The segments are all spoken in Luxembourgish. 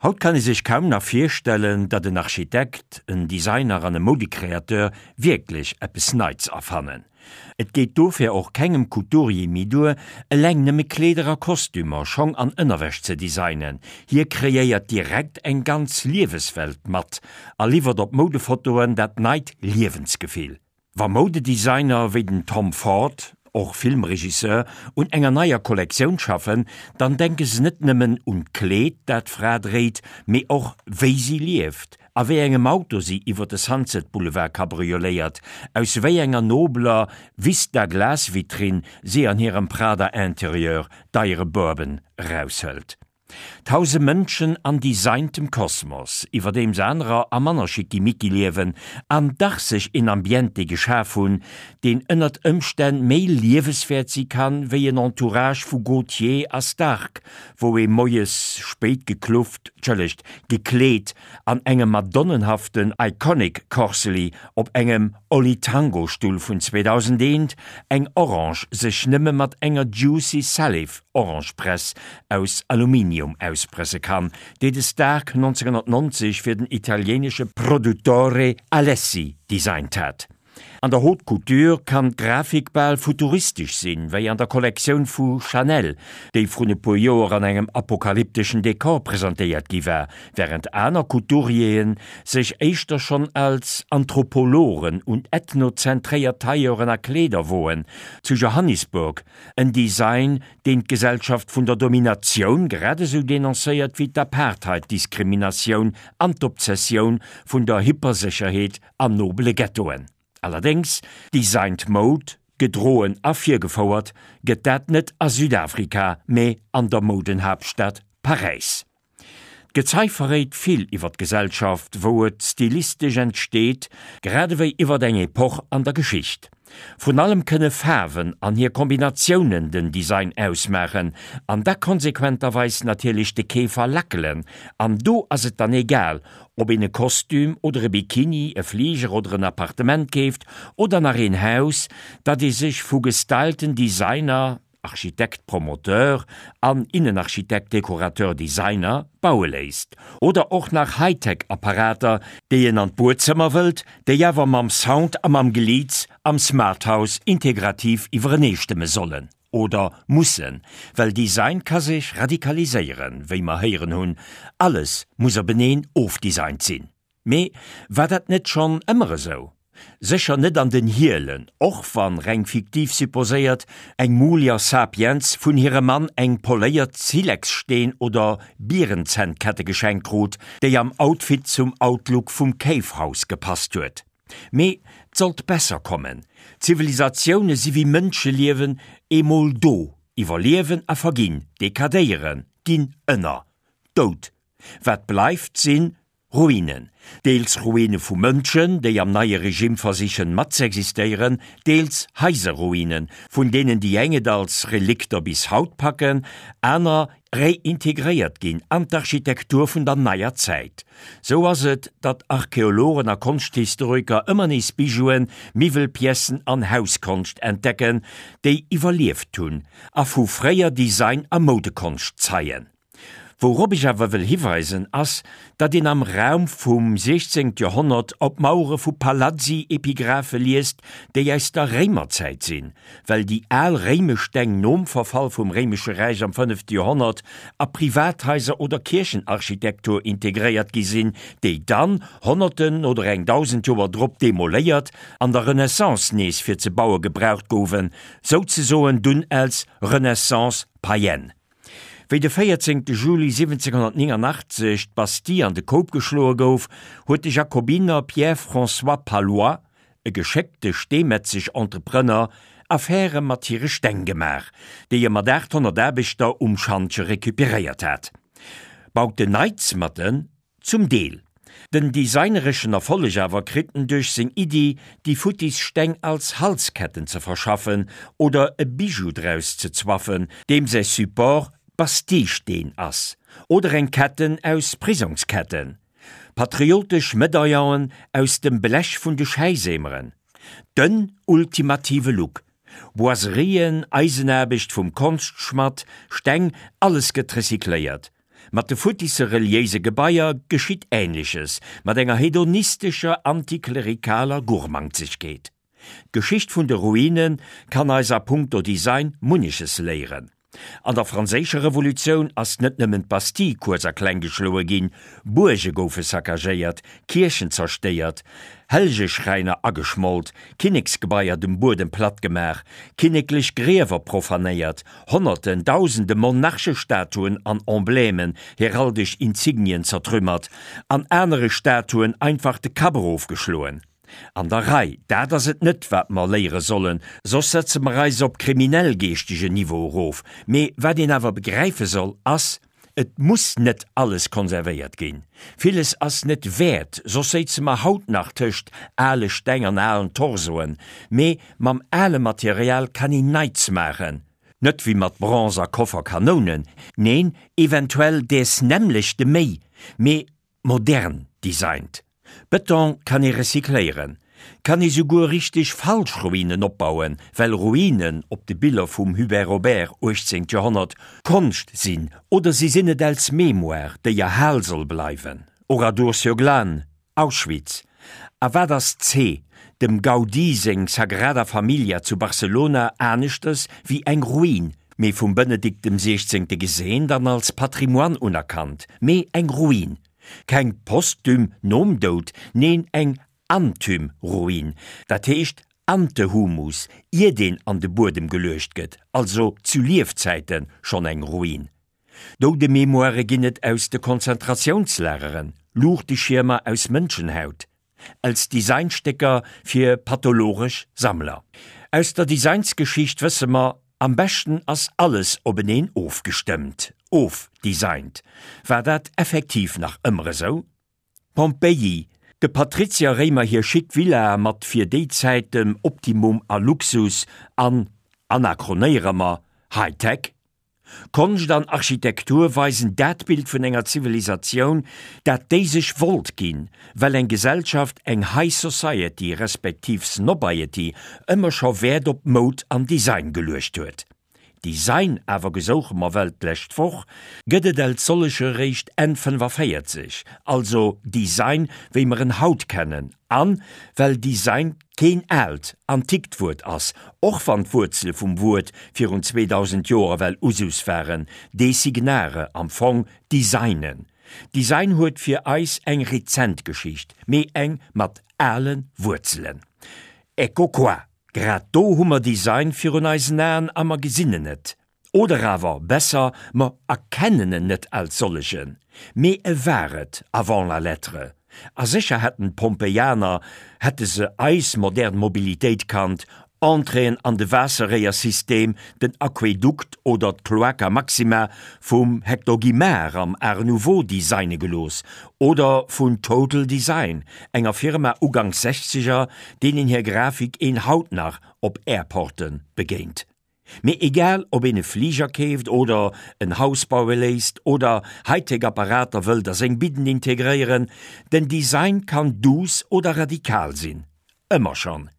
Haut kann ee sech kaum nach virstellen, datt en Architekt, en Designer an e Moudecréateur wierklech eppes Neits erfannen. Et geet dofir och kengem Couturier méi duer, eleng nëmme Kleeder a Kostümer, Schong an Ënnerwäsch ze designen. Hie kreéiert direkt eng ganz Lieweswelt mat a liwwert op Moudefotoen dat neit Liewensgefill. Wa Moudedesigner wéi den Tom Ford, och Filmregisseur, un enger neier Kollektioun schaffen, dann denke se net nëmmen un d'Kleed, dat d'Fra dréit, mee och wéi si lieft, a wéi engem Auto si iwwer de Sunset Boulevard kabrioléiert, aus wéi enger nobeler Vista-Glasvitrinn si an hirem Prada-Interieur deiere Bourbon eraushëlt. Tause Mënschen an designtem Kosmos, iwwerdeems anerer a manner Schickimicki liewen an dach sech een Ambiente geschaf hunn, deen ënnert Ëmstänn méi lieweswäert si kann, wéi en Entourage vu Gaultier a Stark, wou ee moies spéit geklufft, tschëllegt, gekleet an engem madonnenhaften Iconic Corsely op engem Oli-Tango-Stull vun 2001 eng Orange sech nëmme mat enger Juicy Salif Orangepress aus Aluminium auspresse kann, déi de Stark 1990 fir den italieenesche Produttore Alessi designt hat. An der Haute Couture kann d'Grafik bal futuristesch sinn, wéi an der Kollektioun vu Chanel, déi vrun e puer Joer an engem apokalypteschen Dekor presentéiert gi war, wärend aner Couturieren sech éischter schonn als Anthropologen un ethnozentréiert Tailleuren a Kleeder woen, zu Johannisburg, en Design, deen d'Gesellschaft vun der Dominatioun grad esou denoncéiert wéi d'Apartheid-Diskriminatioun an d'Obsessioun vun der Hypersécherheet an nobele Ghettoen. Allerdéngs, designed Mode, gedroen a virgefouert gëtt dat net a Südafrika, mee an der Moudenhaaptstad Paräis. D'Gezei verréit vill iwwer d'Gesellschaft, wou et stilistesch entsteet, grad ewéi iwwer eng Epoch an der Geschicht. Vrun allem kënne Faarwen an hir Kombinatiounen den Design ausmaachen an da konsequenterweis natierlech de Keefer lackelen. An do ass et dann egal, ob een e Kostüm oder e Bikini, e Fliger oder en Appartement keeft oder nach een Haus, dat ee sech vu gestylten Designer, Architekt Promoteur an Innenarchitekt Dekorateur Designer baue léisst. Oder och nach Hightech Apparater, déi een an d'Buedzëmmer wëllt, déi awer mam Sound a mam Geliits am Smarthouse integrativ iwwereneestëmme sollen. Oder mussen. Well Design ka sech radikaliséieren, wéi mer héieren hunn. Alles muss openeen ofdesignt sinn. Mee war dat net schonn ëmmer esou? Sécher net an den Hielen, och wann, reng fiktiv supposéiert, eng Mulier sapiens vun hirem Mann eng poléiert Silexsteen oder Bierenzännkette geschenkt krut, déi am Outfit zum Outlook vum Cave House gepasst huet. Mee 't sollt besser kommen, Zivilisatioune si wéi Mënscheliewen, eemol do, iwwerliewen a verginn, dekadéieren, ginn ënner, dout. Wat bleift sinn Ruinen, deels Ruine vu Mënschen, déi am neie Regime versichen matzeexistéieren, deels Haiserruinen, vun deenen déi eng et als Relikter bis haut packen, aner reintegréiert ginn an d'Architektur vun der neier Zäit. Sou ass et, datt Archeologen a Konschthistoriker ëmmer nees Bijouen, Miwwelpiècen an Hauskonscht entdecken, déi iwwerlieft hunn a vu fréier Design a Moudekonscht zeien. Wourop ech awer wëll hiweisen, ass, datt een am Raum vum 16. Joerhonnert op Mauere vu Palazzi Epigraphe liest, déi aus der Réimerzäit sinn, well déi al réimesch Steng nom Verfall vum Réimesche Räich am fënnefte Joerhonnert a Privathaiser oder Kierchenarchitektur integréiert gi sinn, déi dann, Honnerten oder eng 1.000 Joer drop demoléiert, an der Renaissance nees fir ze baue gebraucht gouwen, souzesoen dunn als Renaissance païenne. Wéi de 14 Juli 1789 d'Bastille an de Koup geschloe gouf, huet de Jakobiner Pierre-François Pallois, e geschéckte Steemetzeg-Entrepreneur, Affäre mat hire Steng gemaach, déi e mat 800 Aarbechter um Schantje recuperéiert hat. Baut en Neits mat en Zum Deel. Den designereschen Erfolleg awer kritt en duerch seng Iddi, déi futtis Steng als Halsketten ze verschaffen oder e Bijou draus ze zwaffen, deem säi Support Bastille-Steen ass, oder eng Ketten aus Prisongsketten, patriotesch Medaillonen aus dem Blech vun de Schäiseemeren. Den ultimative Look. Boiserien, Eisenaarbecht vum Konschtschmadd, Steng, alles gëtt recycléiert. Mat de futtisse reliéise Gebaier geschitt Änleches, mat enger hedonistescher, antiklerikaler Gurmangzegkeet. D'Geschicht vun de Ruine kann eis a punkto Design munneches léieren. An der Franséischer Revolutioun ass net nëmmen d'Bastille kuerz a kleng geschloe ginn, Buerge goufe saccagéiert, Kierchen zerstéiert, Hellgeschräiner ageschmolt, Kinneksgebaier dem Buedem platt gemaach, kinneklech Griewer profanéiert, Honnerten, Dausende Monarchestatuen an Emblemen, heraldesch Insignien zertrümmert, an anere Statuen einfach de Kapp erofgeschloen. An der Rei, dat ass et net, wat mer léiere sollen, soss setze mer eis op kriminell-geeschtegen Niveau erof. Mee wat een awer begräife soll, ass, Et muss net alles konservéiert ginn. Villes ass net wäert, soss séize mer haut nach tëscht ale Steng an alen Torsoen. Mee mam ale Material kann een Neits maachen. Net wéi mat Bronze a Koffer Kanounen, neen, eventuell däers nämmlechte méi, mee Modern designt. Bëton kann ee recycléieren, kann ee souguer richteg falsch Ruinen opbauen, well Ruinen op de Biller vum Hubert Robert, 18. Joerhonnert, Konscht sinn oder si sinn et als Mémoire, déi erhal soll bleiwen, Oradour-sur-Glane, Auschwitz. A wat ass c. Dem Gaudí seng Sagrada Familia zu Barcelona aneschters wéi eng Ruin, mee vum Benedikt dem Siechzéngte geseent an als Patrimoine unerkannt, mee eng Ruin. Keng posthum, nom Doud, neen eng anthum Ruin, dat heescht ante humus, iert een an de Buedem geluecht gëtt, also zu Liefzäite schonn eng Ruin. Doudememoire ginn et aus de Konzentratiounslageren, Luuchteschiermer aus Mënschenhaut, als Designstécker fir pathologesch Sammler. Aus der Designsgeschicht wësse mer, Am beschten ass alles openeen ofgestëmmt, ofdesignt. War dat effektiv nach ëmmer esou? Pompeji, de Patrizier Réimer hir chic Villa mat fir déi Zäit dem Optimum a Luxus an, anachronéiere mer, High-Tech? Konscht an Architektur weisen dat Bild vun enger Zivilisatioun, dat déi sech wollt ginn, well eng Gesellschaft, eng High Society respektiv Snobiety ëmmer scho Wäert op Moud an Design geluecht huet. Design awer, gesouche mer well d'lescht Woch, gëtt et als solleche réischt Enn 45, also Design wéi mer en haut kennen, An well Design keen aalt, antikt Wuert ass, och wann d'Wuerzele vum Wuert virun 2000 Joer ewell Usus waren, designare, am Fong designen. Design huet fir eis eng rezent Geschicht, mee eng mat ale Wuerzelen. Ecco qua, grad do hu mer Design virun eisen Aen a mer gesinn en net. Oder awer besser, mer erkennen en net als sollegen, mee e war et avant la lettre. A sécher hätten d'Pompeianer, hätte se eis modern Mobilitéit kannt, Entréeën an de Waasserréiersystem, den Aquädukt oder d'Cloaca Maxima vum Hector Guimard am Art Nouveau designe gelooss oder vun Total Design, enger Firma uganks Sechzeger, deenen hir Grafik een haut nach op Airporte begéint. Mee egal ob een e Fliger keeft oder en Haus baue léisst oder Hightech Apparater wëllt a seng Bidden integréieren, den Design kann duuss oder radikal sinn. Ëmmer schonn.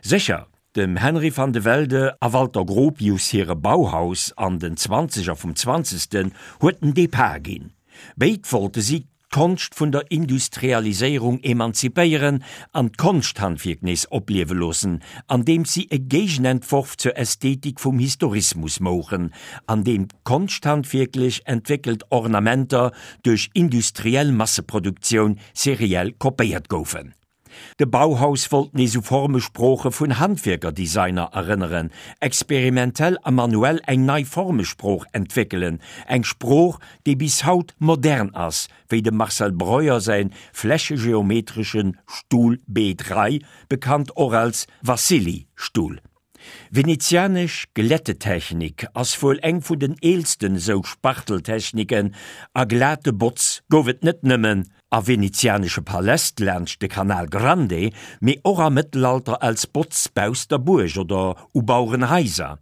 Sécher, dem Henry van de Velde a Walter Gropius hire Bauhaus an den Zwanzeger vum Zwanzegsten huet den Depart ginn. Béid wollte si d'Konscht vun der Industrialiséierung emanzipéieren an d'Konschthandwierk nees opliewe loossen, andeems si e Géigenentworf zur Ästhetik vum Historismus mouchen, an deem konschthandwierklech entwéckelt Ornamenter duerch industriell Masseproduktioun seriell kopéiert goufen. De Bauhaus wollt nees u Formesprooche vun Handwierker-Designer erënneren, experimentell a manuell eng nei Formesprooch entwéckelen, eng Sprooch, déi bis haut modern ass, wéi dem Marcel Breuer säi flächegeometresche Stuhl B3, bekannt och als Wassily-Stuhl. Venezianesch Glättetechnik ass wuel eng vun den eelsten esou Spachteltechniken, a glate Botz gouf et net nëmmen a venezianesche Paläst laanscht de Canal Grande, mee och am Mëttelalter als Botz bausst der Buerg oder u Bauerenhaiser.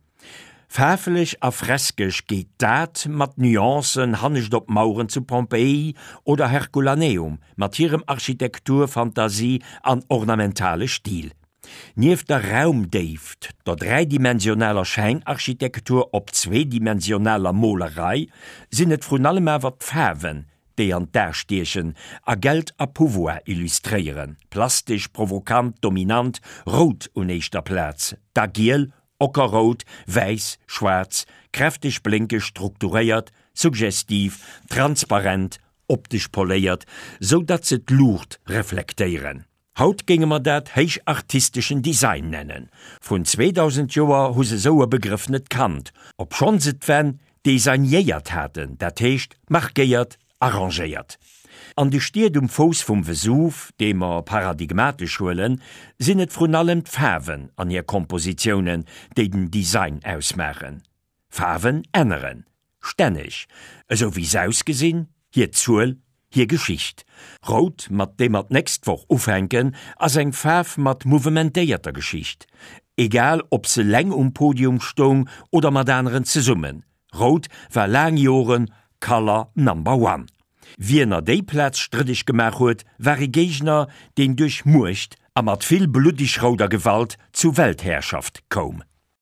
Faarflech a freskesch geet dat mat Nuancen hannescht op Maueren zu Pompeii oder Herculaneum mat hirem Architektur-, Fantasie an ornamentale Stil. Nieft der Raumdéift, der dräidimensionaler Schäinarchitektur op zweedimensionaler Molerei, sinn et vrun allem awer d'Faarwen, déi an d'A stiechen a Geld a Pouvoir illustréieren, plastesch, provokant, dominant, rout un éischter Plaz, da giel, ockerrout, wäiss, schwaarz, kräfteg, blénkeg, strukturéiert, suggestiv, transparent, optesch poléiert, sou datt se d'Luucht reflektéieren. Haut géinge mer dat héichartisteschen Design nennen. Vrun 2000 Joer hu se sou e Begrëff net kannt, obschonn se d'Wänn designéiert haten, dat heescht markéiert, arrangéiert. An de Stied um Fouss vum Vesuv, dee mer paradigmatesch huelen, sinn et vrun allem d'Faarwen an hir Kompositiounen, déi den Design ausmaachen. Faarwen änneren stänneg, esou wéi s'ausgesinn, hir Zuel, hir Geschicht. Rout, mat deem mer d'nächst Woch ufänken, ass eng Faarf mat mouvementéierter Geschicht. Egal ob se leng um Podium stoung oder mat aneren zesummen, Rout war laang Joren Color Number One. Wien er déi Plaz strëddeg gemaach huet, war e Géigner, deen duerch Muecht a mat vill bluddig-rouder Gewalt zu Weltherrschaft koum.